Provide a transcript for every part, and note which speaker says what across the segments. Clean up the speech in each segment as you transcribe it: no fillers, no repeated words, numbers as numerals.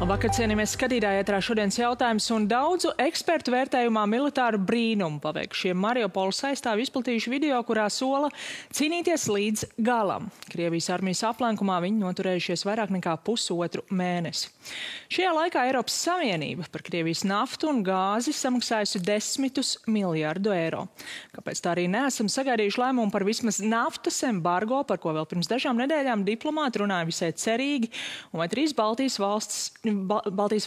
Speaker 1: Labvakar, cienījamies skatītāji, ētrā šodienas jautājums un daudzu ekspertu vērtējumā militāru brīnumu paveikšie Mariupoles aizstāvi izplatījuši video, kurā sola cīnīties līdz galam. Krievijas armijas aplenkumā viņi noturējušies vairāk nekā pusotru mēnesi. Šajā laikā Eiropas Savienība par Krievijas naftu un gāzi samaksājusi desmitus miljardu eiro. Kāpēc tā arī neesam sagaidījuši lēmumu par vismaz naftas embargo, par ko vēl pirms dažām nedēļām diplomāti runāja visai cerīgi, un vai trīs Baltijas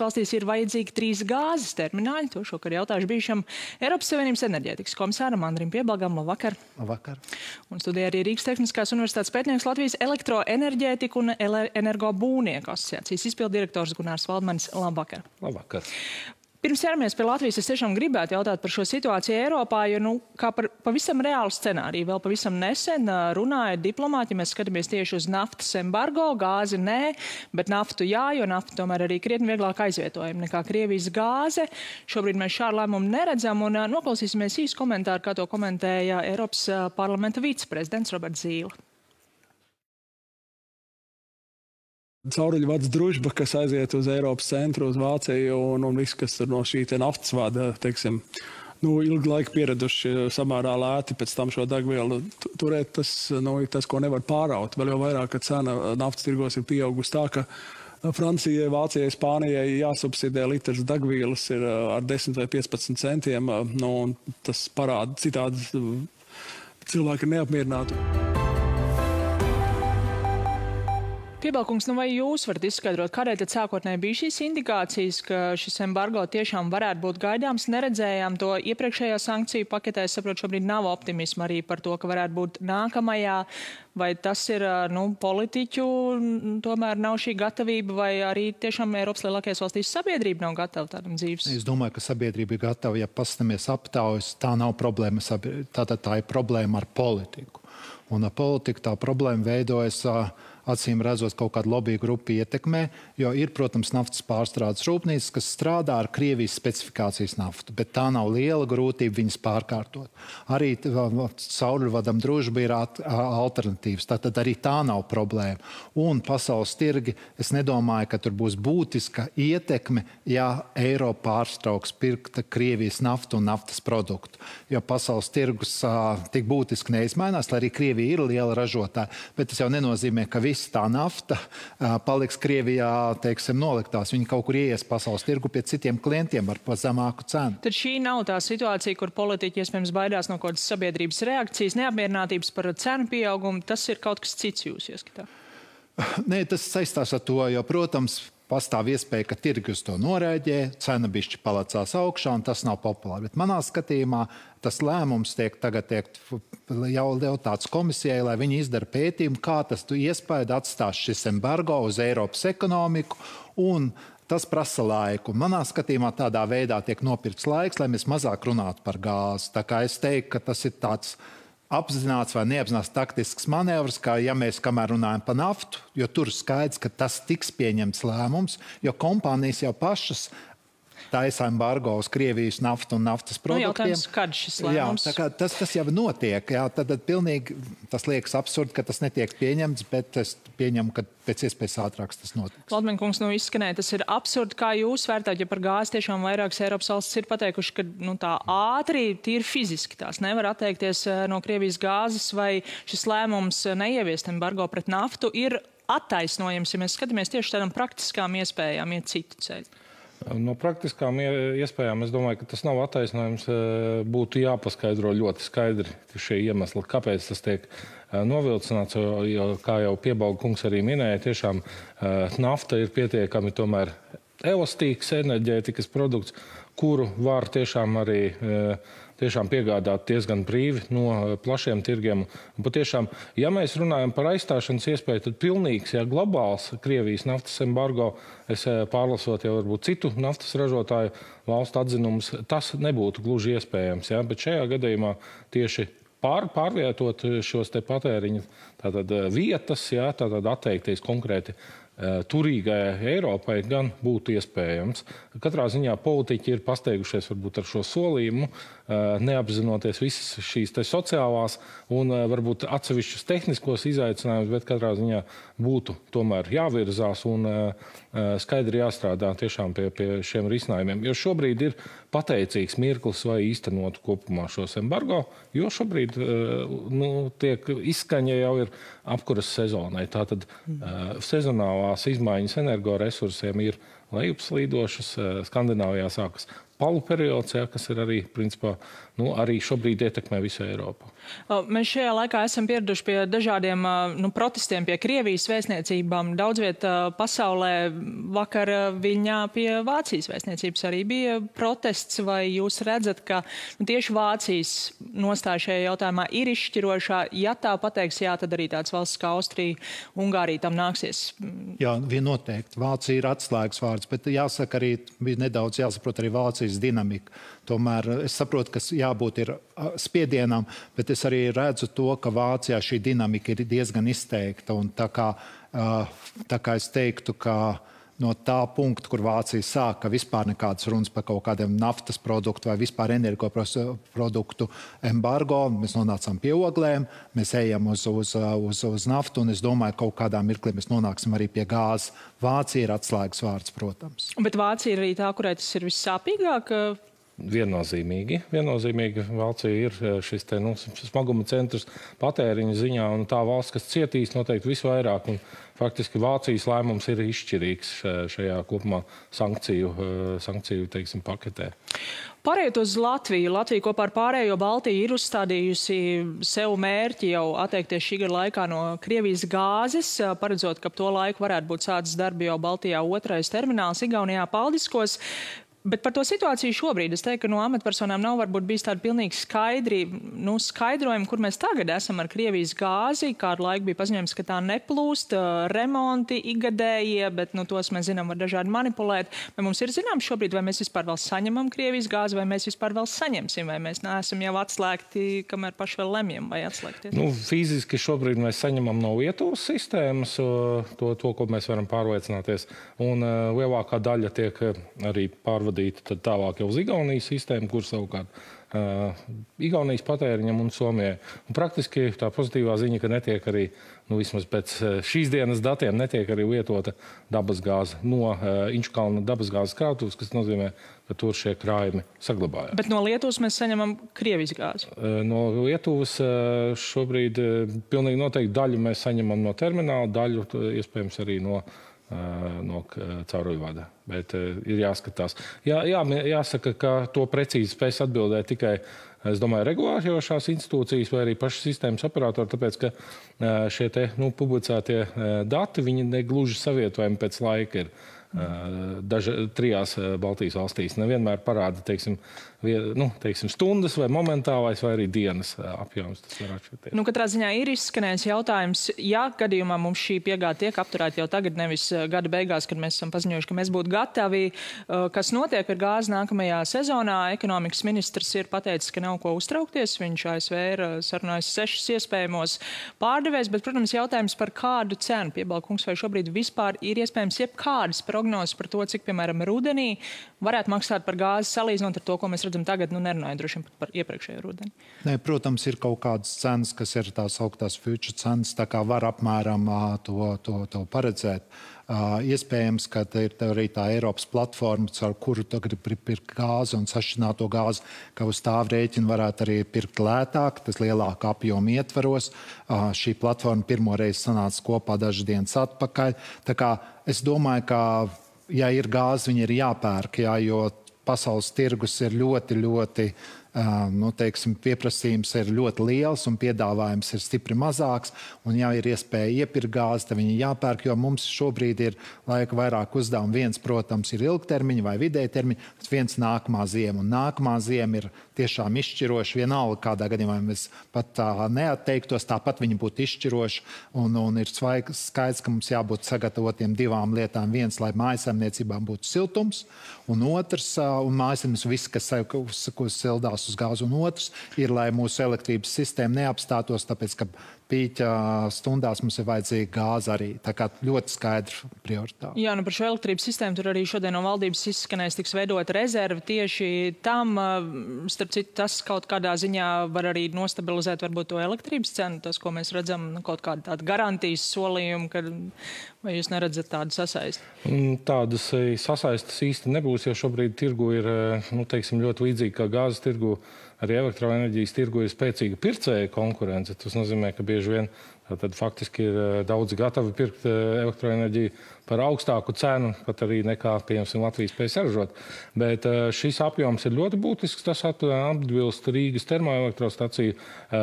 Speaker 1: valstīs ir vajadzīgi 3 gāzes termināļi? To šokar jautājuši bijušam Eiropas Savienības enerģētikas komisāram Andrim Piebalgam. Labvakar!
Speaker 2: Labvakar!
Speaker 1: Un studijā arī Rīgas Tehniskās universitātes pētnieks Latvijas elektroenerģētiku un energobūvnieku asociācijas izpilddirektors Gunārs Valdmanis. Labvakar!
Speaker 2: Labvakar!
Speaker 1: Pirms ķeramies pie Latvijas, es tiešām gribētu jautāt par šo situāciju Eiropā, jo kā par pavisam reālu scenāriju vēl pavisam nesen runāja diplomāti, ja mēs skatāmies tieši uz naftas embargo, gāzi nē, bet naftu jā, jo nafta tomēr arī krietni vieglāk aizvietojama nekā Krievijas gāze. Šobrīd mēs šādu lēmumu neredzam un noklausīsimies īsu komentāru, kā to komentēja Eiropas parlamenta viceprezidents Roberts Zīle.
Speaker 3: Cauruļvads družba, kas aiziet uz Eiropas centru, uz Vāciju un viss, kas tur no šī naftas vada, teiksim, ilgu laiku pieraduši samērā lēti pēc tam šo degvielu turēt, tas, ko nevar pāraut. Vēl jau vairāk, ka cena naftas tirgos ir pieaugusi tā, ka Francijai, Vācijai, Spānijai jāsubsidē litrs degvielas ir ar 10 vai 15 centiem, un tas parāda citādi cilvēki ir neapmierināti.
Speaker 1: Piebalkungs, vai jūs varat izskaidrot, kādēļ tad sākotnēji bija šīs indikācijas, ka šis embargo tiešām varētu būt gaidāms? Neredzējām to iepriekšējā sankciju paketē. Es saprotu, šobrīd nav optimisma arī par to, ka varētu būt nākamajā. Vai tas ir politiķu, tomēr nav šī gatavība, vai arī tiešām Eiropas lielākajās valstīs sabiedrība nav gatava tādam dzīves?
Speaker 2: Es domāju, ka sabiedrība ir gatava, ja pastamies aptaujas, tā nav problēma, tātad tā ir problēma ar politiku. Un ar politiku tā problēma veidojas acīm redzot kaut kādu lobby grupu ietekmē, jo ir, protams, naftas pārstrādes rūpnīcas, kas strādā ar Krievijas specifikācijas naftu, bet tā nav liela grūtība viņas pārkārtot. Arī cauruļvadam družba ir alternatīvas, tātad arī tā nav problēma. Un pasaules tirgi, es nedomāju, ka tur būs būtiska ietekme, ja Eiropa pārstrauks pirkt Krievijas naftu un naftas produktu. Jo pasaules tirgus tik būtiski neizmainās, lai arī Krievija ir liela ražotāja, bet tas jau nenozīmē, ka viss tā nafta paliks Krievijā, teiksim, noliktās. Viņi kaut kur ieies pasaules tirgu pie citiem klientiem ar zemāku cenu.
Speaker 1: Tad šī nav tā situācija, kur politiķi iespējams baidās no kādas sabiedrības reakcijas, neapmierinātības par cenu pieaugumu. Tas ir kaut kas cits jūsu ieskatā?
Speaker 2: Nē, tas saistās ar to, jo, protams, pastāv iespēja, ka tirgi uz to norēģē, cena bišķi palecās augšā, un tas nav populāri. Bet manā skatījumā tas lēmums tagad jau tāds komisijai, lai viņi izdara pētījumu, kā tas iespēja atstās šis embargo uz Eiropas ekonomiku, un tas prasa laiku. Manā skatījumā tādā veidā tiek nopirkts laiks, lai mēs mazāk runātu par gāzi. Tā kā es teiktu, ka tas ir tāds apzināts vai neapzināts taktisks manevrs, kā ja mēs kamēr runājam par naftu, jo tur skaidrs, ka tas tiks pieņemts lēmums, jo kompānijas jau pašas taisa embargo uz Krievijas naftu un naftas produktiem.
Speaker 1: Jautājums, kad šis lēmums?
Speaker 2: Jā, tas jau notiek. Jā, tad pilnīgi tas liekas absurdi, ka tas netiek pieņemts, bet es pieņemu, ka pēc iespējas ātrāks tas notiks.
Speaker 1: Valdmaņkungs, izskanēja, tas ir absurdi, kā jūs vērtājat, ja par gāzi tiešām vairākas Eiropas valstis ir pateikuši, ka tā ātri, tīri fiziski tās nevar atteikties no Krievijas gāzes, vai šis lēmums neieviest embargo pret naftu ir attaisnojams, ja mēs skatāmies tieši tādām praktiskām iespējām iet citu ceļu?
Speaker 4: No praktiskām iespējām es domāju, ka tas nav attaisnojums. Būtu jāpaskaidro ļoti skaidri šie iemesli, kāpēc tas tiek novilcināts, jo, kā jau Piebalga kungs arī minēja, tiešām nafta ir pietiekami tomēr elastīgs enerģētikas produkts, kuru var tiešām arī piegādāt diezgan brīvi no plašiem tirgiem. Un patiešām, ja mēs runājam par aizstāšanas iespēju, tad pilnīgs, globāls Krievijas naftas embargo, es pārlasot jau varbūt citu naftas ražotāju valstu atzinumus, tas nebūtu gluži iespējams. Bet šajā gadījumā tieši pārvietot šos te patēriņu vietas, tātad atteikties konkrēti turīgai Eiropai gan būtu iespējams. Katrā ziņā politiķi ir pasteigušies varbūt ar šo solījumu, neapzinoties visas šīs sociālās un varbūt atsevišķus tehniskos izaicinājumus, bet katrā ziņā būtu tomēr jāvirzās un skaidri jāstrādā tiešām pie šiem risinājumiem. Jo šobrīd ir pateicīgs mirklis, vai īstenot kopumā šos embargo, jo šobrīd tiek izskaņa jau ir apkuras sezonai. Tātad sezonālās izmaiņas energoresursiem ir lejupslīdošas. Skandināvijā sākas palu periods, kas ir arī, principā, arī šobrīd ietekmē visu Eiropu.
Speaker 1: Mēs šajā laikā esam pieraduši pie dažādiem protestiem pie Krievijas vēstniecībām. Daudz viet pasaulē vakar Viļņā pie Vācijas vēstniecības arī bija protests, vai jūs redzat, ka tieši Vācijas nostāja šajā jautājumā ir izšķirošā? Ja tā pateiks jā, tad arī tāds valsts kā Austrija, Ungārija tam nāksies.
Speaker 2: Jā, viennoteikti. Vācija ir atslēgas vārds, bet jāsaka arī, bija nedaudz jāsaprot arī Vācijas dinamika. Tomēr es saprotu, ka jābūt ir spiedienam, bet es arī redzu to, ka Vācijā šī dinamika ir diezgan izteikta. Un tā kā es teiktu, ka no tā punkta, kur Vācija sāka vispār nekādas runas par kaut kādiem naftas produktu vai vispār energoproduktu embargo, mēs nonācām pie oglēm, mēs ejam uz naftu, un es domāju, ka kaut kādā mirklī mēs nonāksim arī pie gāzes. Vācija ir atslēgas vārds, protams.
Speaker 1: Bet Vācija ir arī tā, kurai tas ir vissāpīgāk?
Speaker 4: Viennozīmīgi. Vācija ir šis smaguma centrs patēriņa ziņā, un tā valsts, kas cietīs noteikti visvairāk. Un faktiski Vācijas lēmums ir izšķirīgs šajā kopumā sankciju teiksim, paketē.
Speaker 1: Pārējot uz Latviju. Latvija kopā ar pārējo Baltiju ir uzstādījusi sev mērķi jau atteikties šī gada laikā no Krievijas gāzes, paredzot, ka ap to laiku varētu būt sācis darbi jau Baltijā otrais termināls Igaunijā Paldiskos. Bet par to situāciju šobrīd es teiktu, ka no amatpersonām nav varbūt bijis tādi pilnīgi skaidrojumi, kur mēs tagad esam ar Krievijas gāzi. Kādu laiku bija paziņojums, ka tā neplūst, remonti ikgadējie, bet tos mēs zinām, var dažādi manipulēt. Vai mums ir zināms šobrīd, vai mēs vispār vēl saņemam Krievijas gāzi, vai mēs vispār vēl saņemsim, vai mēs neesam jau atslēgti, kamēr paši vēl lemjam, vai atslēgties?
Speaker 4: Fiziski šobrīd mēs saņemam no Lietuvas sistēmas to, ko mēs varam pārliecināties. Un lielākā daļa tiek arī pārvadīta tad tālāk jau uz Igaunijas sistēmu, kur savukārt Igaunijas patēriņam un Somijai. Un praktiski tā pozitīvā ziņa, ka netiek arī, vismaz pēc šīs dienas datiem, netiek arī lietota dabasgāze no Inčukalna dabasgāzes krātuves, kas nozīmē, ka tur šie krājumi saglabājās.
Speaker 1: Bet no Lietuvas mēs saņemam Krievijas gāzi?
Speaker 4: No Lietuvas šobrīd pilnīgi noteikti daļu mēs saņemam no termināla, daļu iespējams arī no cauruļvada. Bet ir jāskatās. Jāsaka, ka to precīzi spēs atbildēt tikai, es domāju, regulējošās institūcijas vai arī paši sistēmas operatori, tāpēc, ka šie publicētie dati, viņi negluži savietojami pēc laika ir. Trijās Baltijas valstīs nevienmēr parāda, teiksim, stundas vai momentālais vai arī dienas apjoms. Tas var atšķirties.
Speaker 1: Katrā ziņā ir izskanējis jautājums, ja gadījumā mums šī piegāde tiek apturēta jau tagad, nevis gada beigās, kad mēs esam paziņojuši, ka mēs būtu gatavi, kas notiek ar gāzi nākamajā sezonā. Ekonomikas ministrs ir pateicis, ka nav ko uztraukties. Viņš ASV ir sarunājis 6 iespējamos pārdevējs, bet, protams, jautājums par kādu cenu. Piebalkungs, vai šobrīd vispār ir iespējams jebkādas prognozes par to, cik, piemēram, rudenī varētu maksāt par gāzi, salīdzinot ar to, ko mēs redzam tagad, nerunājot droši vien par iepriekšējo rudeni?
Speaker 2: Nē, protams, ir kaut kādas cenas, kas ir tās augtās future cenas, tā kā var apmēram to paredzēt. Iespējams, ka ir arī tā Eiropas platforma, ar kuru tu gribi pirkt gāzi un sašķināto gāzi, ka uz tā rēķina varētu arī pirkt lētāk, tas lielāka apjoma ietvaros. Šī platforma pirmo reizi sanāca kopā dažas dienas atpakaļ. Tā kā es domāju, ka, ja ir gāze, viņi ir jāpērk, jo pasaules tirgus ir ļoti pieprasījums ir ļoti liels un piedāvājums ir stipri mazāks. Un, ja ir iespēja iepirkt gāzi, tad viņi jāpērk, jo mums šobrīd ir laika vairāk uzdevumu. Viens, protams, ir ilgtermiņa vai vidēja termiņa, bet viens nākamā ziema. Un nākamā ziema ir tiešām izšķiroša. Vienalga, kādā gadījumā mēs pat neatteiktos, tāpat viņi būtu izšķiroši. Un ir skaidrs, ka mums jābūt sagatavotiem divām lietām. Viens, lai mājasemniecībām būtu siltums, un otrs, un mājasemniecības viss, kas sildās pārvērtās uz gāzi, un otrs ir, lai mūsu elektrības sistēma neapstātos, tāpēc, ka pīķa stundās mums ir vajadzīga gāze arī. Tā kā ļoti skaidra prioritāte.
Speaker 1: Jā, par šo elektrības sistēmu tur arī šodien no valdības izskanēs tiks veidot rezervi tieši tam. Starp citu, tas kaut kādā ziņā var arī nostabilizēt varbūt to elektrības cenu, tas, ko mēs redzam, kaut kāda tāda garantijas solījuma, vai jūs neredzat tādu sasaisti?
Speaker 4: Tādas sasaistas īsti nebūs, jo šobrīd tirgu ir, teiksim, ļoti līdzīgi kā gāzes tirgu. Arī elektroenerģijas tirgu ir spēcīga pircēja konkurence. Tas nozīmē, ka bieži vien tad faktiski ir daudzi gatavi pirkt elektroenerģiju par augstāku cenu, pat arī nekā, piemēram, Latvijas spēj saražot. Bet šis apjoms ir ļoti būtisks. Tas atbilst Rīgas termoelektrostaciju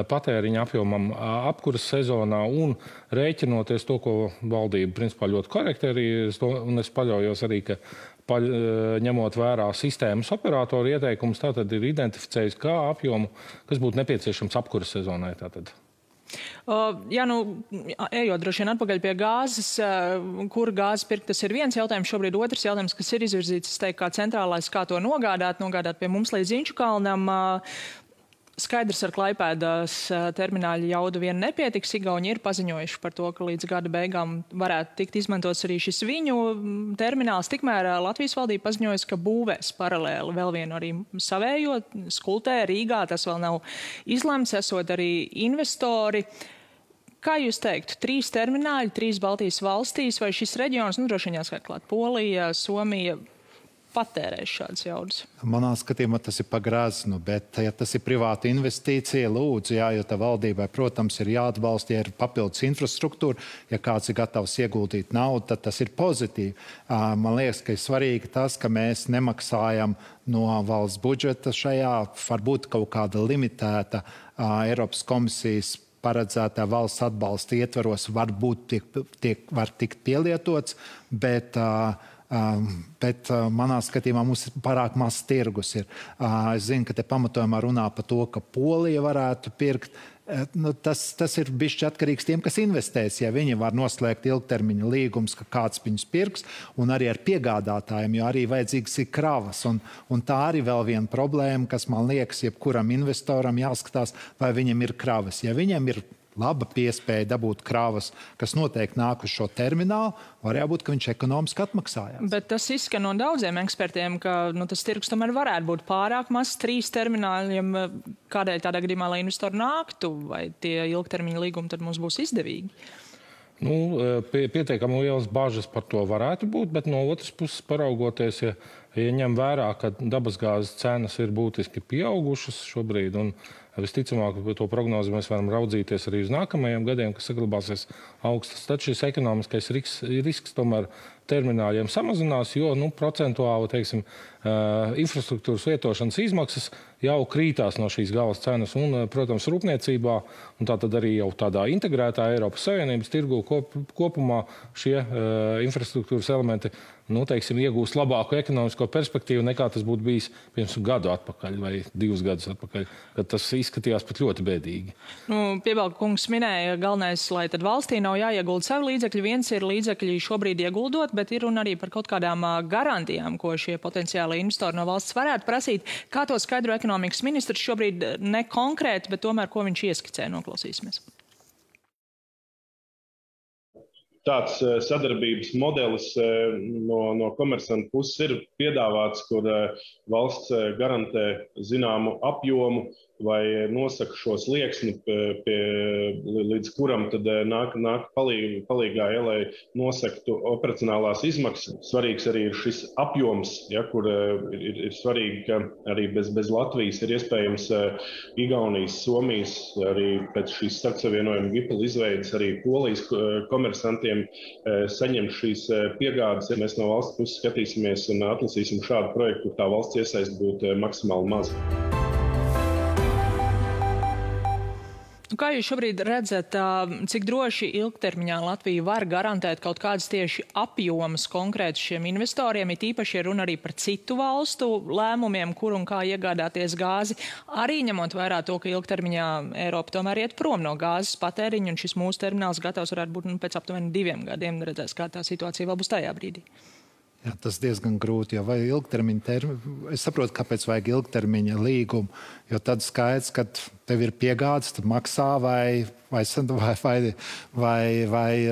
Speaker 4: patēriņa apjomam apkuras sezonā un rēķinoties to, ko valdība principā ļoti korekti arī, un es paļaujos arī, ka ņemot vērā sistēmas operatoru ieteikumus, tātad ir identificējis kā apjomu, kas būtu nepieciešams apkuras sezonai. Tātad.
Speaker 1: Jā, ejot droši vien atpakaļ pie gāzes, kur gāzes pirkt, tas ir viens jautājums. Šobrīd otrs jautājums, kas ir izvirzīts, es teiktu, kā centrālais, kā to nogādāt pie mums līdz Inčukalnam. Skaidrs, ar Klaipēdas termināļa jaudu vien nepietiks. Igauni ir paziņojuši par to, ka līdz gada beigām varētu tikt izmantots arī šis viņu termināls. Tikmēr Latvijas valdība paziņojas, ka būvēs paralēli vēl vienu arī savējo Skultē Rīgā. Tas vēl nav izlemts, esot arī investori. Kā jūs teiktu, 3 termināļi, 3 Baltijas valstīs, vai šis reģions, droši vien jāskait klāt Polija, Somija, patērēs šādas jaudas?
Speaker 2: Manā skatījumā tas ir pagrāznu, bet ja tas ir privāta investīcija, lūdzu, jā, jo tā valdībai, protams, ir jāatbalsta, ja ir papildus infrastruktūra, ja kāds ir gatavs ieguldīt naudu, tad tas ir pozitīvi. Man liekas, ka ir svarīgi tas, ka mēs nemaksājam no valsts budžeta šajā, varbūt kaut kāda limitēta Eiropas komisijas paredzētā valsts atbalsta ietvaros varbūt var tikt pielietots, bet manā skatījumā mums ir pārāk maz tirgus. Es zinu, ka te pamatojumā runā par to, ka Polija varētu pirkt. Tas ir bišķi atkarīgs tiem, kas investēs. Ja viņi var noslēgt ilgtermiņa līgumus, ka kāds viņus pirks, un arī ar piegādātājiem, jo arī vajadzīgs ir kravas. Un tā arī vēl viena problēma, kas man liekas, jebkuram investoram jāskatās, vai viņam ir kravas. Ja viņam ir laba piespēja dabūt kravas, kas noteikti nāk uz šo terminālu, var jābūt, ka viņš ekonomiski atmaksājās.
Speaker 1: Bet tas izskan no daudziem ekspertiem, ka tas tirgus tomēr varētu būt pārāk maz 3 termināļiem. Kādēļ tādā gadījumā, lai investori nāktu, vai tie ilgtermiņa līgumi tad mums būs izdevīgi?
Speaker 4: Pietiekami lielas bažas par to varētu būt, bet no otras puses paraugoties, ja ņem vērā, ka dabasgāzes cenas ir būtiski pieaugušas šobrīd, un visticamāk, to prognozi mēs varam raudzīties arī uz nākamajiem gadiem, kas saglabāsies augstas. Tad šis ekonomiskais risks tomēr termināļiem samazinās, jo procentuāli, teiksim, infrastruktūras lietošanas izmaksas jau krītās no šīs galas cenas. Un, protams, rūpniecībā, un tātad arī jau tādā integrētā Eiropas Savienības tirgu kopumā šie infrastruktūras elementi, teiksim, iegūst labāku ekonomisko perspektīvu nekā tas būtu bijis pirms gadu atpakaļ vai 2 gadus atpakaļ, kad tas izskatījās pat ļoti bēdīgi.
Speaker 1: Piebalga kungs minēja, galvenais, lai tad valstī nav jāiegulda savi līdzekļi. Viens ir līdzekļi šobrīd ieguldot, bet ir un arī par kaut kādām garantijām, ko šie potenciāli investori no valsts varētu prasīt. Kā to skaidro ekonomikas ministrs šobrīd ne konkrēti, bet tomēr, ko viņš ieskicē, noklausīsimies.
Speaker 5: Tāds sadarbības modelis no komersanta puses ir piedāvāts, kur valsts garantē zināmu apjomu vai nosaka šo slieksni, līdz kuram tad nāk palīgā, lai nosaktu operacionālās izmaksas. Svarīgs arī ir šis apjoms, kur ir svarīgi, ka arī bez Latvijas ir iespējams Igaunijas, Somijas, arī pēc šīs starpsavienojuma GIPL izveidas arī Polijas komersantiem saņemt šīs piegādes. Ja mēs no valsts puses skatīsimies un atlasīsim šādu projektu, kur tā valsts iesaist būtu maksimāli maz.
Speaker 1: Kā jūs šobrīd redzat, cik droši ilgtermiņā Latvija var garantēt kaut kādas tieši apjomas konkrēti šiem investoriem, ir īpaši runa arī par citu valstu lēmumiem, kur un kā iegādāties gāzi, arī ņemot vērā to, ka ilgtermiņā Eiropa tomēr iet prom no gāzes patēriņa, un šis mūsu termināls gatavs varētu būt pēc aptuveni 2 gadiem. Redzēs, kā tā situācija vēl būs tajā brīdī.
Speaker 2: Jā, tas diezgan grūti, jo vai ilgtermiņa es saprotu, kāpēc vajag ilgtermiņa līgumu, jo tad skaidrs, ka tev ir piegādes, tu maksā vai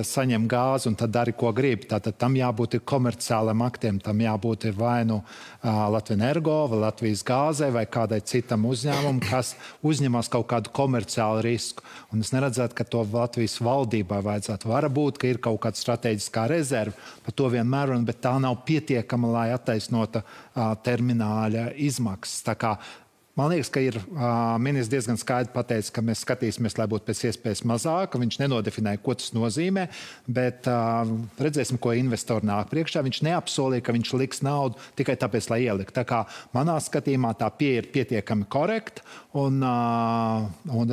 Speaker 2: saņem gāzi un tad dari, ko gribi. Tātad tam jābūt komerciāliem aktiem, tam jābūt vai nu Latvijas Energo, vai Latvijas gāzē, vai kādai citam uzņēmumam, kas uzņemas kaut kādu komerciālu risku. Un es neredzētu, ka to Latvijas valdībai vajadzētu. Varbūt, ka ir kaut kāda strateģiskā rezerve, par to vienmēr runa, bet tā nav pietiekama, lai attaisnota termināļa izmaksas. Tā kā man liekas, ka ir ministrs diezgan skaidri pateicis, ka mēs skatīsimies, lai būtu pēc iespējas mazāk. Viņš nenodefinēja, ko tas nozīmē, bet redzēsim, ko investori nāk priekšā. Viņš neapsolīja, ka viņš liks naudu tikai tāpēc, lai ielikt. Tā kā manā skatījumā tā pieeja ir pietiekami korekta un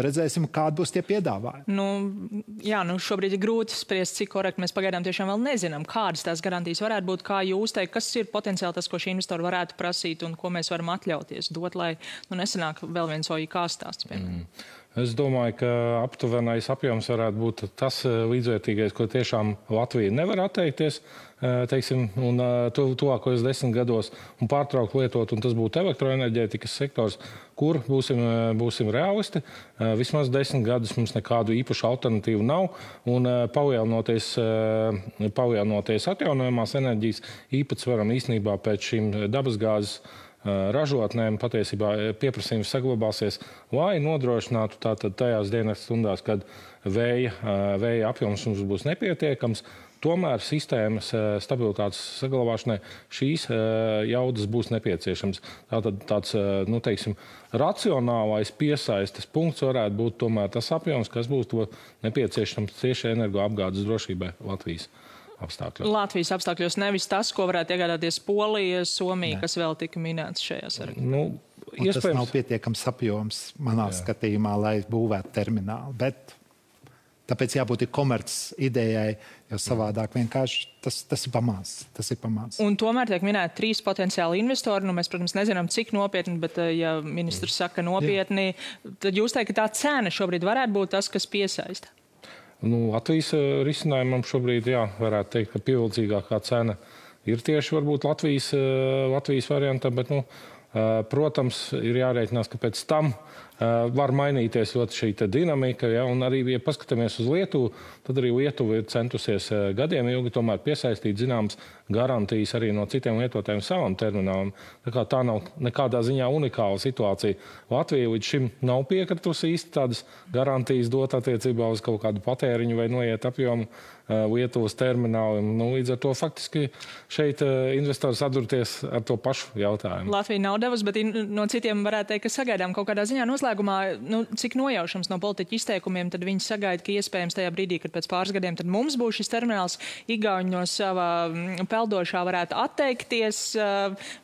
Speaker 2: redzēsim, kādi būs tie piedāvājumi.
Speaker 1: Jā, šobrīd ir grūti spriest, cik korekti mēs pagaidām tiešām vēl nezinām, kādas tās garantijas varētu būt, kā jūs teikt, kas ir potenciāli tas, ko šī investori varētu prasīt un ko mēs varam atļauties dot, lai nesanāk vēl viens OIK stāsts, piemēram.
Speaker 4: Es domāju, ka aptuvenais apjoms varētu būt tas līdzvērtīgais, ko tiešām Latvija nevar atteikties, teiksim, un tuvākajos 10 gados un pārtraukt lietot, un tas būtu elektroenerģētikas sektors, kur būsim realisti. Vismaz 10 gadus mums nekādu īpašu alternatīvu nav, un palielinoties atjaunojamās enerģijas īpatsvaram īstenībā pēc šīm dabasgāzes ražotnēm patiesībā pieprasījums saglabāsies, lai nodrošinātu tātad tajās dienas stundās, kad vēja apjoms mums būs nepietiekams. Tomēr sistēmas stabilitātes saglabāšanai šīs jaudas būs nepieciešams. Tātad tāds, teiksim, racionālais piesaistes punkts varētu būt tomēr tas apjoms, kas būtu nepieciešams tieši energoapgādes drošībai Latvijas apstākļos.
Speaker 1: Latvijas apstākļos, nevis tas, ko varētu iegādāties Polija, Somija, kas vēl tika minēts šajā sarakstā.
Speaker 2: Tas nav pietiekams apjoms manā skatījumā, lai būvētu terminālu. Bet tāpēc jābūt komerces idejai, jo savādāk vienkārši tas ir pamāts.
Speaker 1: Un tomēr tiek minēti 3 potenciāli investori. Mēs, protams, nezinām, cik nopietni, bet ja ministrs saka nopietni, tad jūs teikt, ka tā cena šobrīd varētu būt tas, kas piesaista?
Speaker 4: Latvijas risinājumam šobrīd, varētu teikt, ka pievilcīgākā cena ir tieši varbūt Latvijas varianta, bet, protams, ir jārēķinās, ka pēc tam var mainīties ļoti šī dinamika, un arī, ja paskatāmies uz Lietuvu, tad arī Lietuva ir centusies gadiem ilgi tomēr piesaistīt zināmas garantijas arī no citiem lietotājiem savam terminālam. Tā nav nekādā ziņā unikāla situācija. Latvija līdz šim nav piekritusi īsti tādas garantijas dot attiecībā uz kaut kādu patēriņu vai noiet apjomu Lietuvas terminālim. Līdz ar to faktiski šeit investori sadurties ar to pašu jautājumu.
Speaker 1: Latvija nav devusi, bet no citiem varētu teikt, ka sagaidām kaut kādā ziņā noslēgumā, cik nojaušams no politiķu izteikumiem, tad viņi sagaida, ka iespējams tajā brīdī, kad pēc pāris gadiem tad mums būs šis termināls, Igauņi no savā peldošā varētu atteikties,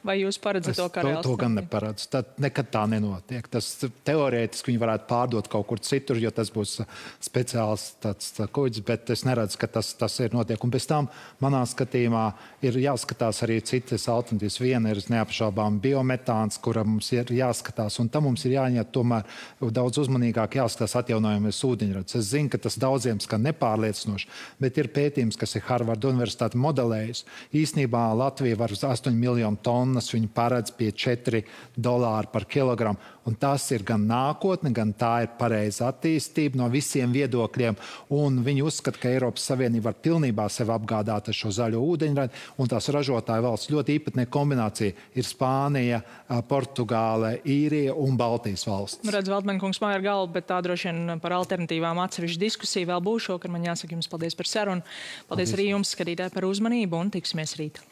Speaker 1: vai jūs paredzat to kā reāls?
Speaker 2: To gan neparedzu. Tad nekad tā nenotiek. Tas teorētiski viņi varētu pārdot kaut kur citur, jo tas būs speciāls tāds kuģis, bet es neredzu, ka tas ir notiek. Un pēc tam, manā skatījumā, ir jāskatās arī citas alternatīvas. Viena ir neapšaubām biometāns, kura mums ir jāskatās, un tam mums ir jāņem tomēr daudz uzmanīgāk jāskatās atjaunojamies ūdeņradis. Es zinu, ka tas daudziem skan nepārliecinoši, bet ir pētījums, kas ir Harvarda universitāte modelējis. Īsnībā Latvija var uz 8 miljonu tonnas, viņi paredz pie $4 par kilogramu. Un tas ir gan nākotne, gan tā ir pareiza attīstība no visiem viedokļiem. Un viņi uzskata, ka Eiropas Savienība var pilnībā sevi apgādāt ar šo zaļo ūdeņradi. Un tās ražotāju valsts ļoti īpatnē kombinācija ir Spānija, Portugāle, Īrija un Baltijas valsts.
Speaker 1: Redz, Veltmane kungs māja ar galvu, bet tā droši vien par alternatīvām atsevišķu diskusiju vēl būs šokar. Man jāsaka jums paldies par sarunu. Paldies arī jums, skatītāji, par uzmanību un tiksimies rīt.